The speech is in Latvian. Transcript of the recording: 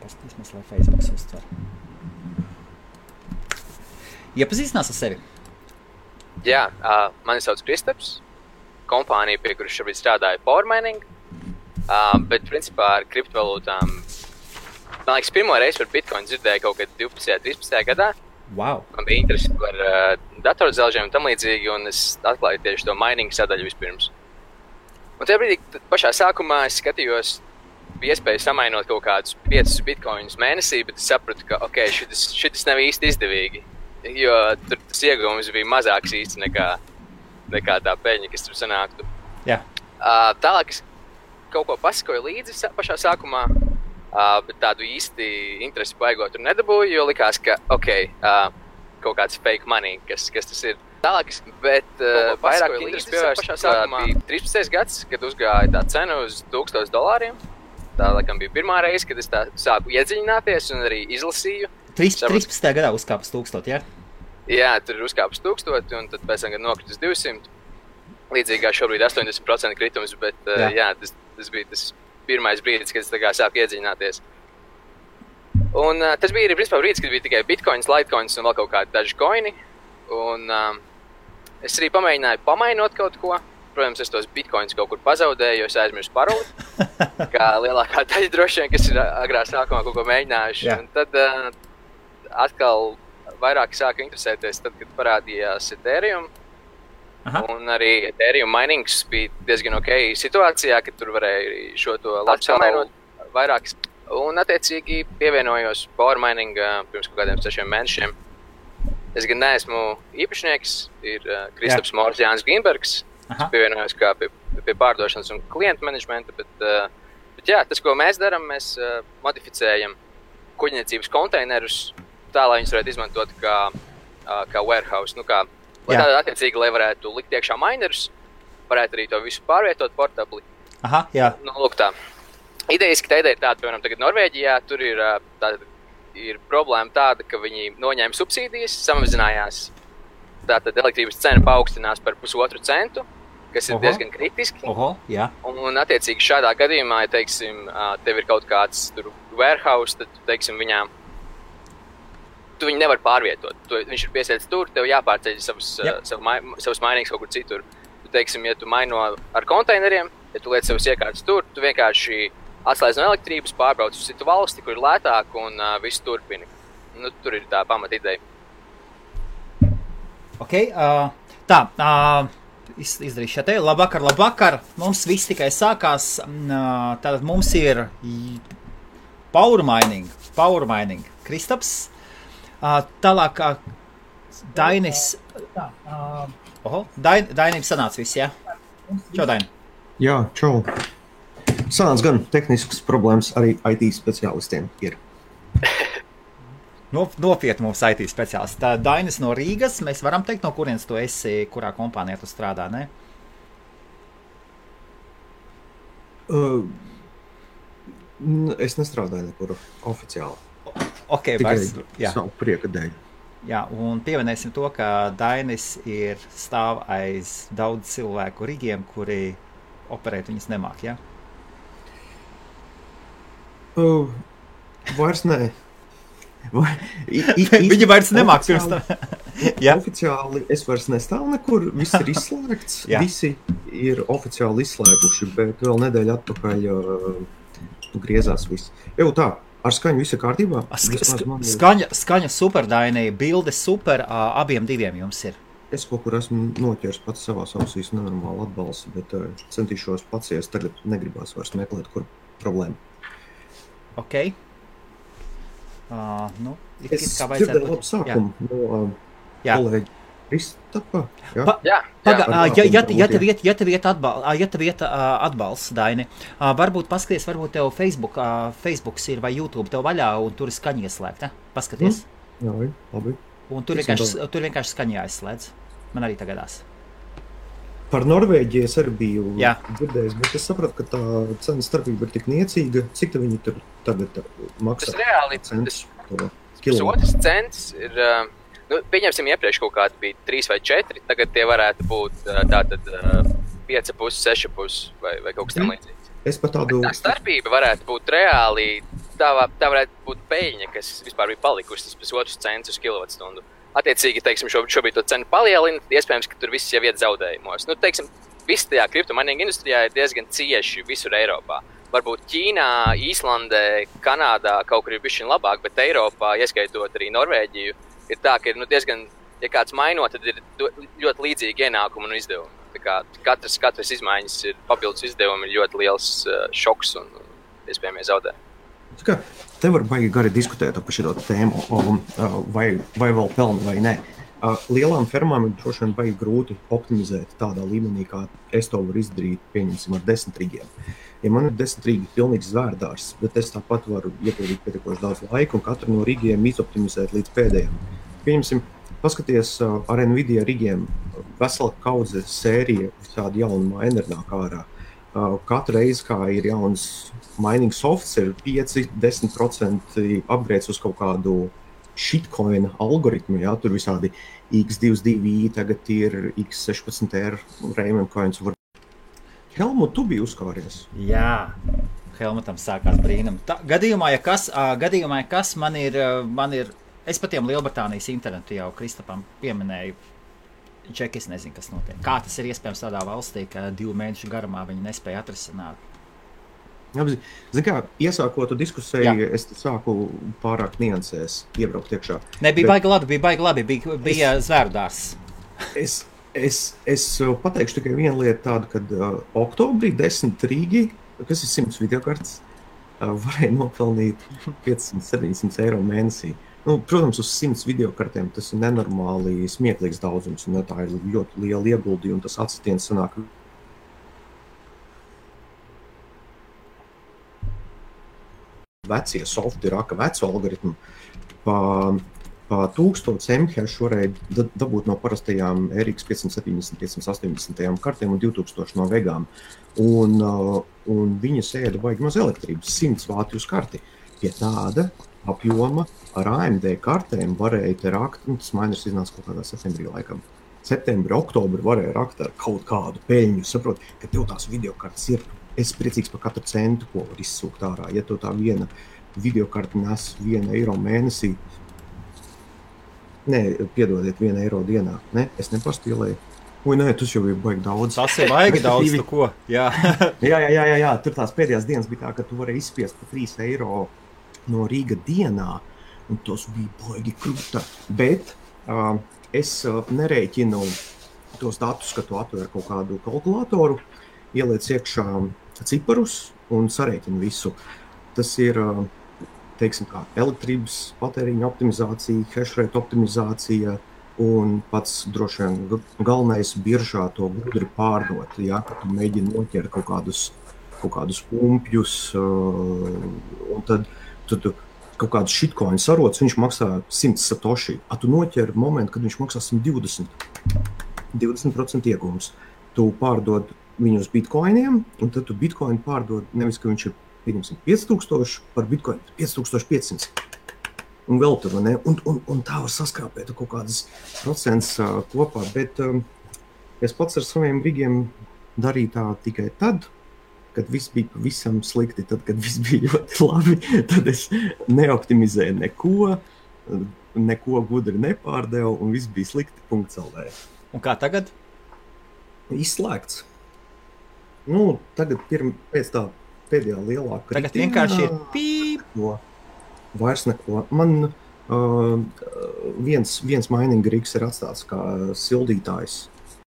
paskatīsimies, lai Facebooks uztver. Iepazīstinās ar sevi? Jā, mani sauc Kristaps. Kompānija, pie kuras šobrīd strādāju Power Mining. Bet, principā, ar kriptovalūtām, man liekas, pirmo reizi par Bitcoin dzirdēju kaut kad 12. 13. gadā. Wow. Man bija interesi par datorzelžiem un tam līdzīgi, un es atklāju tieši to mining sadaļu vispirms. Un tajā brīdī, pašā sākumā es skatījos, bija iespēja samainot kaut kādus 5 bitcoinus mēnesī, bet es sapratu, ka, šitas nav īsti izdevīgi, jo tur tas ieguvums bija mazāks īsti nekā tā peļņa, kas tur sanāktu. Jā. Tālāk es kaut ko pasakoju līdzi pašā sākumā, bet tādu īsti interesi baigot tur nedabūju, jo likās, ka, kaut kāds fake money, kas tas ir. Tālāk, bet vairāk interesi pievērst pašā sākumā bija 13. gads, kad uzgāja tā cena uz $1000. Tā, laikam, bija pirmā reize, kad es tā sāku iedziļināties un arī izlasīju. 13. gadā uzkāpus 1000, jā? Jā, tur uzkāpus 1000, un tad pēc tam, kad nokritus 200. Līdzīgi kā šobrīd 80% kritums, bet jā, tas bija tas pirmais brīdis, kad es tā kā sāku iedziļināties. Un tas bija arī, principā, brīdis, kad bija tikai bitcoins, litecoins un vēl kaut kādi daži koini. Un es arī pamēģināju pamainot kaut ko. Protams, es tos bitcoins kaut kur pazaudēju, jo es aizmirsu paroli. Kā lielākā daļa droši vien, kas ir agrā sākumā kaut ko mēģinājuši. Un tad atkal vairāk sāku interesēties, tad, kad parādījās Ethereum. Aha. Un arī Ethereum minings bija diezgan ok situācijā, kad tur varēja šo to labi samainot vairākas. Un attiecīgi pievienojos Power Mining pirms kaut kādiem 6 mēnešiem. Es gan neesmu īpašnieks, ir Kristaps Mors Jānis Gimbergs. Es pievienojos kā pie pārdošanas un klientu menedžmenta, bet jā, tas, ko mēs darām, mēs modificējam kuģniecības konteinerus tā, lai viņus varētu izmantot kā warehouse, lai tādā attiecīgi, lai varētu likt iekšā minerus, varētu arī to visu pārvietot portabli. Aha, jā. Lūk tā. Idejiski tā ideja ir tāda, piemēram, tagad Norvēģijā, tur ir problēma tāda, ka viņi noņēma subsīdijas, samazinājās. Tātad elektrības cena paaugstinās par 1,5 centu, kas ir diezgan kritiski. Jā. Un attiecīgi šādā gadījumā, ja, teiksim, tev ir kaut kāds tur warehouse, tad, teiksim, tu viņu nevar pārvietot. Viņš ir piesēdz tur, tev jāpārceļ savus mainīgs kaut kur citur. Tu, teiksim, ja tu maino ar konteineriem, ja tu liec savus iekārtas tur, tu vienkārši atslēdz no elektrības, pārbrauc uz citu valsti, kur ir lētāk un visu turpini. Tur ir tā pamata ideja. Ok, izdarīšu šeit. Labvakar. Mums viss tikai sākās. Tātad mums ir Power Mining. Kristaps. Tālāk Dainis. Dainim sanāca viss, jā? Čau, Daini. Jā, čau. Sanāca gan tehniskas problēmas arī IT speciālistiem ir. Nopietni mums IT speciālisti. Tā Dainis no Rīgas, mēs varam teikt, no kurienes tu esi, kurā kompānijā tu strādā, ne? Es nestrādāju nekur oficiāli. Ok, tikai savu prieka dēļ. Jā, un pieminēsim to, ka Dainis stāv aiz daudz cilvēku rigiem, kuri operēt viņas nemāk, jā? Vairs nē. Viņi vairs nemāk pirms tam. Oficiāli es vairs nestāvu nekur, viss ir izslēgts, visi ir oficiāli izslēguši, bet vēl nedēļa atpakaļ griezās viss. Tā, ar skaņu viss ir kārtībā? Skaņa super, Daini, bilde super, abiem diviem jums ir. Es kaut kur esmu noķers pats savās ausīs nenormāli atbalstu, bet centīšos pacies, tagad negribās vairs meklēt, kur problēma. Ok. Es dzirdēju labu sākumu no kolēģi Kristapa. Ja tev iet atbalsts, Daini, varbūt paskaties, varbūt tev Facebooks ir vai YouTube tev vaļā un tur ir skaņa ieslēgta. Paskaties. Jā, labi. Un tur vienkārši skaņa jāizslēdz. Man arī tagadās. Par Norvēģiju es arī biju dzirdējis, bet es sapratu, ka tā cena starpība ir tik niecīga. Cik te viņi tur tagad maksā? Tas reāli, pusotrs cents ir, pieņemsim iepriekš kaut kādi bija 3 vai 4, tagad tie varētu būt tātad 5,5, 6,5 vai kaut kas tam līdzīgs. Es pat tādu... Tā starpība varētu būt reāli tā varētu būt peļņa, kas vispār bija palikusi tas 1,5 cents uz kilovatstundu. Attiecīgi, teiksim, šobrīd to cenu palielina, iespējams, ka tur viss jau iet zaudējumos. Nu, teiksim, viss tajā kriptomainīga industrijā ir diezgan cieši visur Eiropā. Varbūt Ķīnā, Īslandē, Kanādā kaut kur ir bišķiņ labāk, bet Eiropā, ieskaitot arī Norvēģiju, ir tā, ka ir diezgan, ja kāds mainot, tad ir ļoti līdzīgi ienākumi un izdevumi. Tā kā katras izmaiņas ir papildus izdevumi, ir ļoti liels šoks un iespējamie zaudējumi. Te var baigi gari diskutēt par šo tēmu, vai vēl pelna vai nē. Lielām fermām ir droši vien baigi grūti optimizēt tādā līmenī, kā es to varu izdarīt, pieņemsim, ar 10 rigiem. Ja man ir 10 rigi pilnīgs zvērdārs, bet es tāpat varu iepildīt pietiekoši daudz laika un katru no rigiem izoptimizēt līdz pēdējiem. Pieņemsim, paskaties ar Nvidia rigiem, vesela kaudze sērija visādi jaunu maineri nāk ārā. Katru reizi, kā ir jauns mining softs, ir 5-10% upgrades uz kaut kādu shitcoin algoritmu, jā, tur visādi X22i, tagad ir X16R Raymond coins. Helmut, tu biji uzkāries? Jā, Helmutam sākās brīnum. Gadījumā, ja kas man ir, es pat tiem Lielbritānijas internetu jau Kristapam pieminēju, Čeki, es nezinu, kas notiek. Kā tas ir iespējams tādā valstī, ka 2 mēnešu garumā viņi nespēja atrisināt? Zini kā, iesākot diskusiju, es sāku pārāk niansēs iebraukt iekšā. Bija baigi labi, bija zvērdārs. Es pateikšu tikai vienu lietu tādu, kad oktobrī 10 rīgi, kas ir 100 videokartes, varēja nopelnīt 500-700 eiro mēnesī. Nu, protams, uz 100 videokartēm tas ir nenormāli smieklīgs daudzums, un tā ir ļoti liela ieguldījuma, un tas atsitiens sanāk. Vecie softi raka vecu algoritmu pa 1000 mHz varēja dabūt no parastajām RX 570, 580 kartēm un 2000 no vegām. Un viņas ēda baigi maz elektrības, 100 vāti uz karti. Pie tāda apjoma ar AMD kartēm varēja te rakt, un tas mainers iznāca kaut kādā septembrī laikam. Septembri, oktobri varēja rakt ar kaut kādu peļņu. Saprot, ka tev tās videokartes ir. Es priecīgs par katru centu, ko var izsūkt ārā. Ja tev tā viena videokarte nes 1 eiro mēnesī, piedodiet, 1 eiro dienā. Ne, es nepastīlēju. Nē, tas jau ir baigi daudz. Tas ir baigi daudz, tu ko? Jā. jā. Tur tās pēdējās dienas bija tā, ka tu varēji izspiest par 3 eiro no Rīga dienā, un tos bija baigi krūta. Bet es nerēķinu tos datus, ka tu atver kaut kādu kalkulātoru, ieliec iekšā ciparus un sarēķinu visu. Tas ir, teiksim kā, elektrības patēriņa optimizācija, hashrate optimizācija un pats droši vien galvenais biržā to gudri pārdot, ja, ka tu mēģini noķert kaut kādus pumpjus, un tad tu kaut kādus shitcoin sarots, viņš maksā 100 satoshi, a tu noķer momentu, kad viņš maksā 120. 20% iegūms. Tu pārdod viņu uz bitcoiniem, un tad tu bitcoin pārdod, nevis, ka viņš ir, pieņemsim, 5000 par bitcoin, 5500. Un vēl tur, ne? Un tā var saskrāpēt kaut kādas procents kopā, bet es pats ar saviem rigiem darīju tā tikai tad, kad viss bija pavisam slikti, tad, kad viss bija ļoti labi, tad es neoptimizēju neko gudri nepārdevu, un viss bija slikti .lv. Un kā tagad? Izslēgts. Nu, tagad pēc tā pēdējā lielā kritīna. Tagad vienkārši ir pīp. Vairs neko. Man viens mining rigs ir atstāts kā sildītājs.